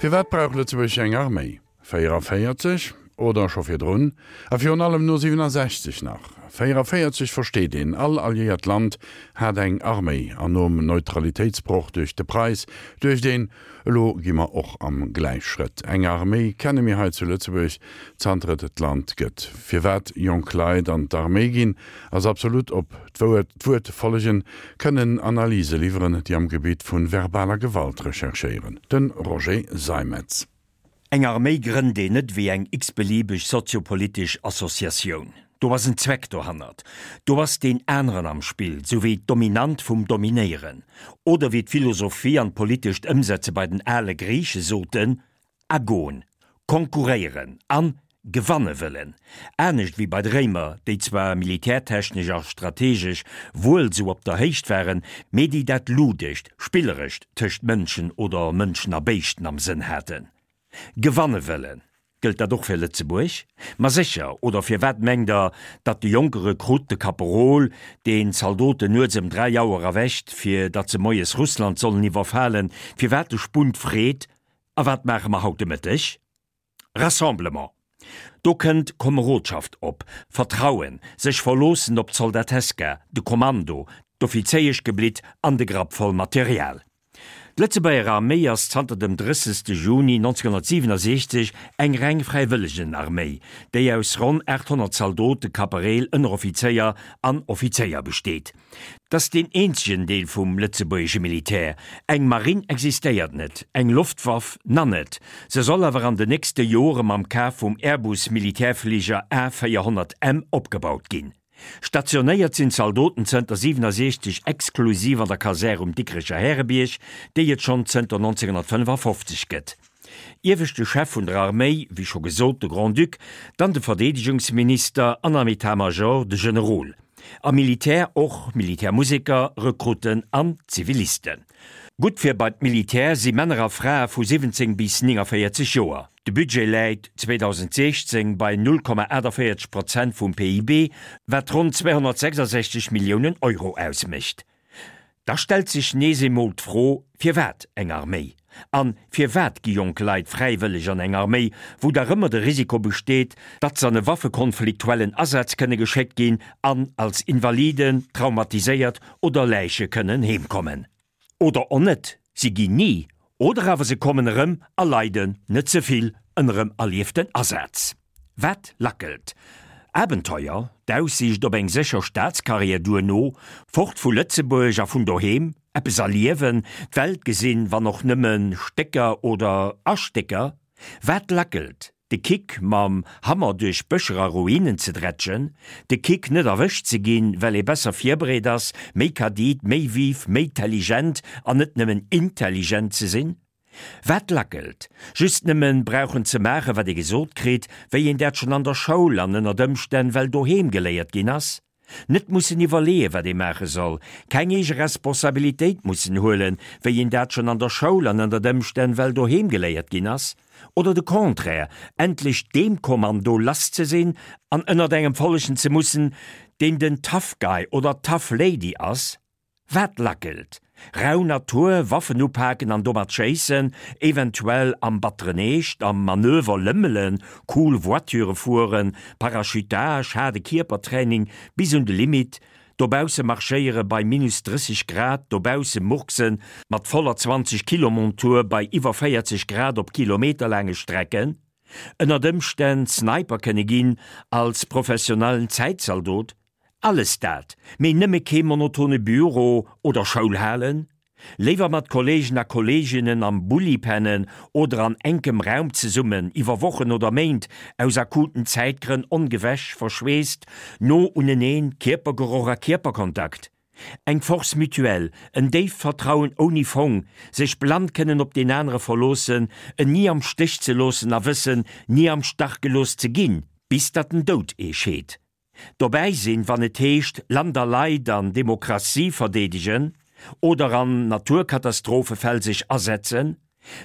Firwat brauch Lëtzebuerg eng Arméi? 44, oder scho virdrun, a virun allem no 67 nach. 44 versteet een, all alliéiert Land hat eng Arméi, an nom Neutralitéitsbroch duerch de Preis duecht een, elo gi mer och am Gläichschrëtt. Eng Arméi kenne mir hei zu Lëtzebuerg zanter et d'Land gëtt. Firwat jonk Leit an d'Arméi ginn, ass absolut op d'Wuert follegen, kënnen Analyse liwweren, déi am Gebitt vu verbaler Gewalt recherchéieren. De Roger Seimetz. Eng Arméi grënnt een net wéi eng x-beliebeg soziopolitesch Associatioun. Do ass en Zweck dohannert. Do ass deen aneren am Spill, sou wéi d'Dominant vum Dominéieren. Oder wéi d'Philosophie an d'politescht Ëmsetze bei den ale Griiche soten, Agon, konkurréieren an gewanne wëllen. Anescht wéi bei de Réimer, déi zwar militärtechnesch a strategesch wuel sou op der Héicht waren, mee déi dat Ludescht, Spillerescht tëscht Mënschen oder Mënschen a Béischten am Sënn haten. Gewanne wëllen. Gëllt dat och fir Lëtzebuerg? Ma sécher, oder firwat mengt der, datt de jonke Rekrutt, de Kaperol, deen d'Zaldoten nuets ëm 3 Auer erwächt, fir datt se moies Russland sollen iwwerfalen, firwat de Spunt freet, A wat maache mer haut de Mëtteg? Rassemblement. Do kënnt Komerodschaft op, Vertrauen, sech verloossen op d'Soldateska, de Kommando, d'Offizéieschgeblitt an de Grapp voll Material. D'Lëtzebuerger Arméi ass zanter dem 30. Juni 1967 eng reng Fräiwëllegenarméi, déi aus ronn 800 Zaldote, Kapereel, Ënneroffizéier an Offizéier besteet. 't ass deen eenzegen Deel vum lëtzebuergesche Militär. Eng Marinn existéiert net, eng Loftwaff na net. Se soll awer an den nächste Jore mam Kaf vum Airbus-Militärfliger A 400 M opgebaut ginn. Stationéiert sinn d'Zaldoten zënter 67 exklusiv an der Kasär um Dikrecher Härebierg, déi et schonn zënter 1955 gëtt. Ieweschte Chef vun der Arméi, wéi scho gesot, de Grand-Duc, dann de Verdeedegungsminister an am État-Major de Generol. Am Militär och Militärmuseker, Rekrutten an Zivilisten. Gutt fir bei d'Militär si Männer a Frae vu 17 bis 49 Joer. De Budget läit 2016 bei 0,48 Prozent vum PIB, wat ronn 266 Milliounen Euro ausmécht. Da stellt sech nees emol d'Fro, Firwat eng Arméi? An firwat gi jonk Leit fräiwëlleg an eng Arméi, wou dach ëmmer de Risiko besteet, datt s'an e waffekonfliktuellen Asaz kënne geschéckt ginn an als Invaliden, traumatiséiert oder Läiche kënnen heemkommen? Oder och net, si ginn ni, oder awer se kommen erëm a leiden net ze vill ënnerem erlieften Asaz. Wat lackelt? Abenteuer, d'Aussiicht op eng sécher Staatscarrière duerno, fort vu Lëtzebuerg a vun doheem, eppes erliewen, d'Welt gesinn, wann och nëmme Stécker oder a Stécker. Wat lackelt? De Kick, mam Hammer duerch Bëscher a Ruinen ze drätschen, de Kick, net erwëscht ze ginn, well ee besser virbereet ass, méi kadit, méi vif, méi telligent an net nëmmen intelligent ze sinn. Wat lackelt? Just nëmmen brauchen ze maachen, wat ee gesot kritt, wéi een dat schonn an der Schoul an ënnert Ëmstänn well doheem geléiert ginn ass. Net mussen iwwerleeën, wat ee maache soll, keng eege Responsabilitéit mussen huelen, wéi een dat schonn an der Schoul an ënnert Ëmstänn well doheem geléiert ginn ass. Oder de Contraire, endlech deem Kommando lass ze sinn an ënnert engem follegen ze mussen, deen den Tough Guy oder Tough Lady ass. Wat lackelt? Rau Natur, Waffen upaken an domat schéissen, eventuell am batteren Eescht, am Manöver lëmmelen, cool Voiture fueren, Parachutage, haarde Kierpertraining bis un de Limit, dobausse marschéiere bei minus 30 Grad, dobausse murksen mat voller 20 Kilo Montur bei iwwer 40 Grad op kilometerlaange Strecken, ënnert Ëmstänn Sniper kënne ginn als professionellen Zäitzaldot, Alles dat, mee nëmme kee monotone Büro oder Schoul halen? Léiwer mat Kollegen a Kolleginnen am Bulli pennen oder an enkem Raum zesummen, iwwer Wochen oder Méint, aus akuten Zäitgrënn ongewäsch, verschweesst, no uneneen, Kierpergeroch a Kierperkontakt. Eng Force mutuelle, en déift Vertrauen ouni Fong, sech blann kënnen op deen anere verloossen, en ni am Stéch ze loossen a wëssen, ni am Stach gelooss ze ginn, bis datt den Doud ee scheet. Dobäi sinn, wann et heescht Land a Leit an Demokratie verdeedegen oder an Naturkatastrophefäll sech asetzen.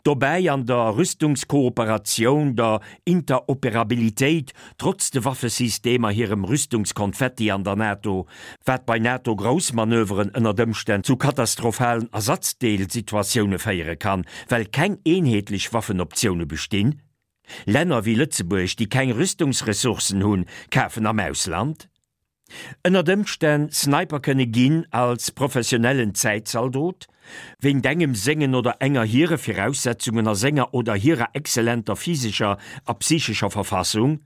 Dobäi an der Rüstungskooperatioun, der Interoperabilitéit, trotz de Waffesystemer, hirem Rüstungskonfetti an der NATO, wat bei NATO-Groussmanöveren ënnert Ëmstänn zu katastrophalen Ersatzdeelsituatioune féiere kann, well keng eenheetlech Waffenoptioune bestinn. Länner wéi Lëtzebuerg, déi keng Rüstungsressourcen hunn, kafen am Ausland. Ënnert Ëmstänn Sniper kënne ginn als professionellen Zäitzaldot, wéint engem sengen oder enger hire Viraussetzungen a senger oder hirer exzellenter physescher a psychescher Verfassung,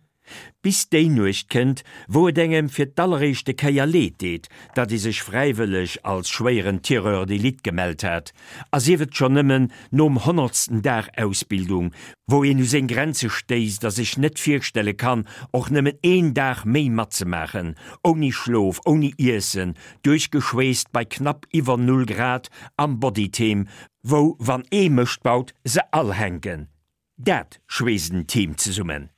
bis déi Nuecht kënnt, wou et engem fir d'alleréischte Kéier leed deet, datt ee sech fräiwëlleg als schwéieren Tireur d'élite gemellt hat, a sief et schonn nëmmen nom honnertsten Dag Ausbildung, wou een u seng Grenze stéisst a sech net virstelle kann, och nëmmen een Dag méi matzemaachen, ouni Schlof, ouni Iessen, duerchgeschweesst bei knapp iwwer Null Grad am Bodyteam, wou wann ee Mëscht baut, se all hänken. Dat schweesst en Team zesummen.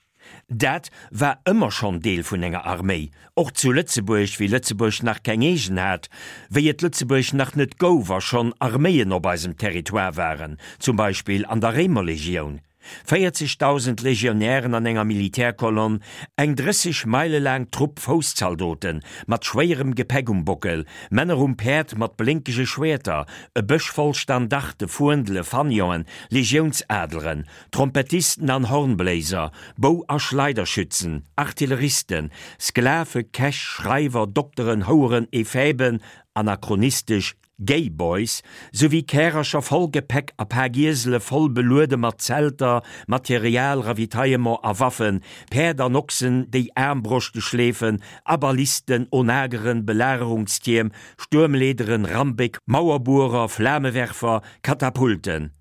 Dat war ëmmer schonn Deel vun enger Arméi, och zu Lëtzebuerg, wéi Lëtzebuerg nach keng eegen hat, wéi et Lëtzebuerg nach net gouf a schonn Arméien op eisem Territoire waren, zum Beispill an der Réimerlegioun. 40.000 Legionären an enger Militärkolonn, eng 30 Meile laang Trupp Fousszaldoten, mat schwéierem Gepäck um Bockel, Männer um Päerd mat blénkege Schwäerter, e Bësch voll Standarte, Fuendele, Fanione, Legiounsadleren, Trompettisten an Hornbléiser, Bou a Schleiderschützen, Artilleristen, Sklave, Käch, Schreiwer, Dokteren, Houeren, Ephäben, anachronistesch Gay Boys, souwéi Kärercher voll Gepäck a Pak Iesele voll beluede mat Zelter, Material, Ravitaillement a Waffen, Päerd an Ochsen, déi Aarmbroschte schleefen, Abalisten, Onageren, Belagerungstierm, Stuermleederen, Rambéck, Mauerbuerer, Flamewerfer, Katapulten.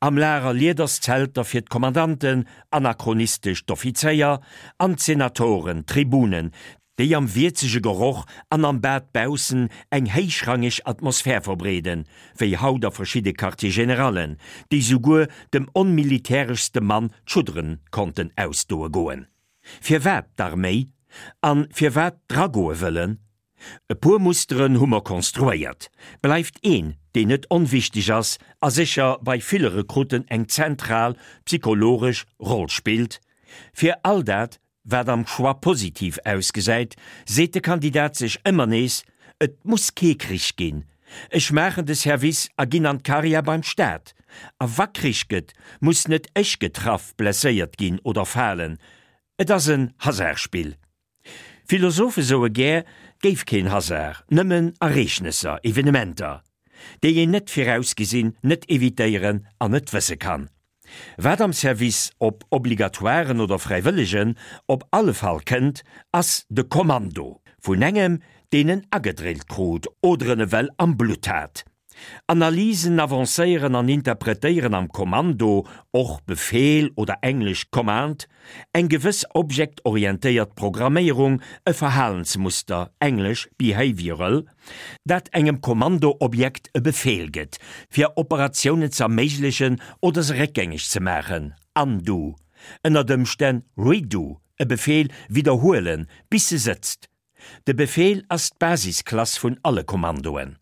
Am Lager Liederszelter fir d'Kommandanten, anachronistesch d'Offizéier, an d'Senatoren, d'Tribunen, déi am wierzege Geroch an am Bad baussen eng héichrangeg Atmosphär verbreeden, wéi haut a verschidde Quartier-générallen, déi souguer dem onmilitäreschste Mann d'Schuddere konnten ausdoe goen. Firwat d'Arméi? An firwat dragoe wëllen? E puer Musteren hu mer konstruéiert. Bleift een, deen net onwichteg ass a sécher bei ville Rekrutten eng zentral psychologesch Roll spillt. Fir all dat, wat am Choix positiv ausgesäit, seet de Kandidat sech ëmmer nees, Et muss kee Krich ginn, ech maachen de Service a ginn an d'Karriär beim Staat. A wa Krich gëtt, muss net ech getraff, blesséiert ginn oder falen. Et ass en Hasardspill. Philosophe soe gär, 't géif keen Hasard, nëmmen Ereegnesser, Evenementer, déi een net virausgesinn, net evitéieren an net wësse kann. Wat am Service, ob obligatoiren oder fräiwëllegen, op alle Fall kënnt, ass de Kommando vun engem, deen en agedrillt krut oder en ewell am Blutt hat. Analysen avancéieren an interpretéieren am Kommando, och Befeel oder englesch Command, eng gewëss objektorientéiert Programméierung, e Verhalensmuster, englesch behavioral, dat engem Kommando-Objekt e Befeel gëtt, fir Operatiounen z'erméiglechen oder se réckgängeg ze maachen, undo, ënnert Ëmstänn redo, e Befeel widderhuelen, bis se sëtzt. De Befeel ass d'Basisklass vun alle Kommandoen.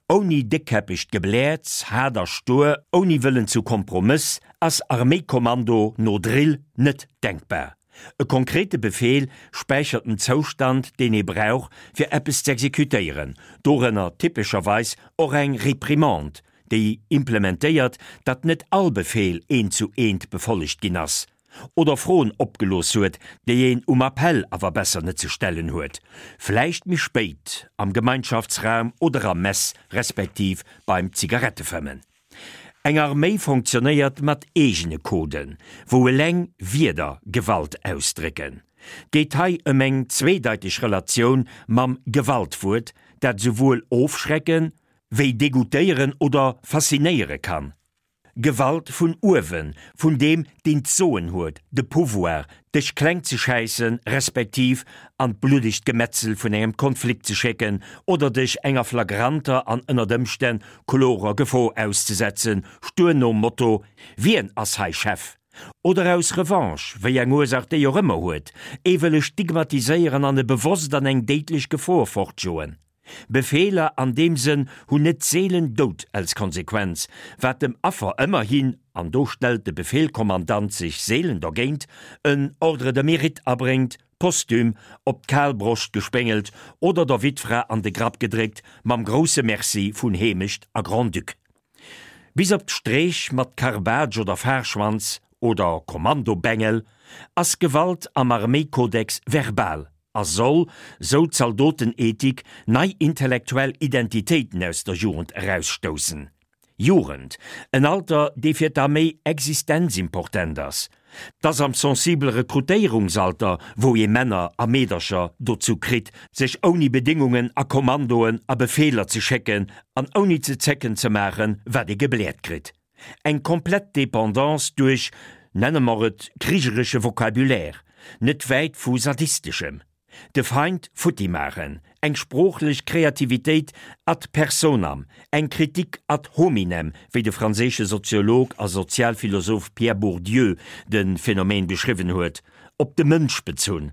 Ouni déckkäppegt Gebläerz, haart a stuer, ouni Wëllen zu Kompromëss ass Arméikommando no Drill net denkbar. E konkrete Befeel späichert den Zoustand, deen ee brauch, fir eppes z'exekutéieren, dorënner typescherweis och eng Reprimande, déi implementéiert, datt net all Befeel eent zu eent befollegt ginn ass. Oder Froen opgelooss huet, déi een um Appell awer besser net ze stellen huet, vläicht méi spéit am Gemeinschaftsraum oder am Mess respektiv beim Zigarettefëmmen. Eng Arméi fonctionnéiert mat eegene Coden, wou eleng Wierder Gewalt ausdrécken. Geet hei ëm eng zweedeiteg Relatioun mam Gewaltwuert, dat esouwuel ofschrecken, wéi degoutéieren oder faszinéiere kann. Gewalt vun uewen, vun deem, deen d'Soen huet, de Pouvoir, dech kleng ze schäissen, respektiv an d'bluddegt Gemetzel vun engem Konflikt ze schécken oder dech enger flagranter an ënnert Ëmstänn klorer Gefor auszesetzen, stuer nom Motto, Wien ass hei Chef? Oder aus Revanche, wéi eng Ursaach déi och ëmmer huet, ee wëlle stigmatiséieren an e bewosst an eng déidlech Gefor fortjoen. Befeeler an deem Sënn hunn net seelen Doud als Konsequenz, wat dem Affer ëmmerhin. an do stellt de Befehlkommandant sech seelen dergéint, en Ordre de mérite abréngt, posthum op d'kal Broscht gespéngelt oder der Wittfra an de Grapp gedréckt mam grousse Merci vun Heemecht a Grand-Duc. Bis op d'Streech mat Karbaatsch oder Fahrschwanz oder Kommandobengel ass Gewalt am Arméikodex verbal a soll, sou d'Zaldotenethik, nei intellektuell Identitéiten aus der Jugend erausstoussen. Jugend, en Alter, dee fir d'Arméi existenzimportent ass. 't ass am sensibele Rekrutéierungsalter, wou ee Männer a Meedercher dozou kritt, sech ouni Bedéngungen a Kommandoen a Befeeler ze schécken an ouni ze zécken ze maachen, wat ee gebläert kritt. Eng komplett Dependance duerch, nenne mer et, krigeresche Vocabulaire, net wäit vu sadisteschem. De Feind futti maachen, eng sproochlech Kreativitéit ad personam, eng Kritik ad hominem, wéi de franséische Soziolog a Sozialphilosoph Pierre Bourdieu de Phänomen beschriwwen huet, op de Mënsch bezunn.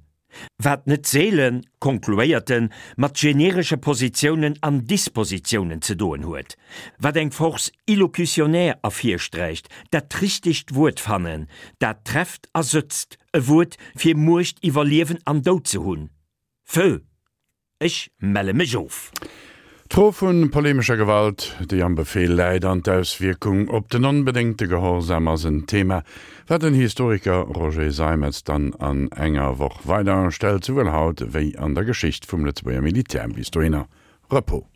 Wat net seelen, konkluéiert en, mat generesche Positiounen an Dispositiounen ze doen huet. Wat eng Force illocutionnaire ervirsträicht, dat richtegt Wuert fannen, dat trefft a sëtzt, E Wuert fir Muecht iwwer Liewen an Doud ze hunn. Feu! Ech melle mech of. D'Fro vu polemescher Gewalt, déi am Befehl läit, an d'Auswierkung op den onbedéngte Gehorsam ass en Thema, wat den Historiker Roger Seimetz dann an enger Woch weider stellt, souwuel haut wéi an der Geschicht vum Lëtzebuerger Militär. Bis dohinner, Repos.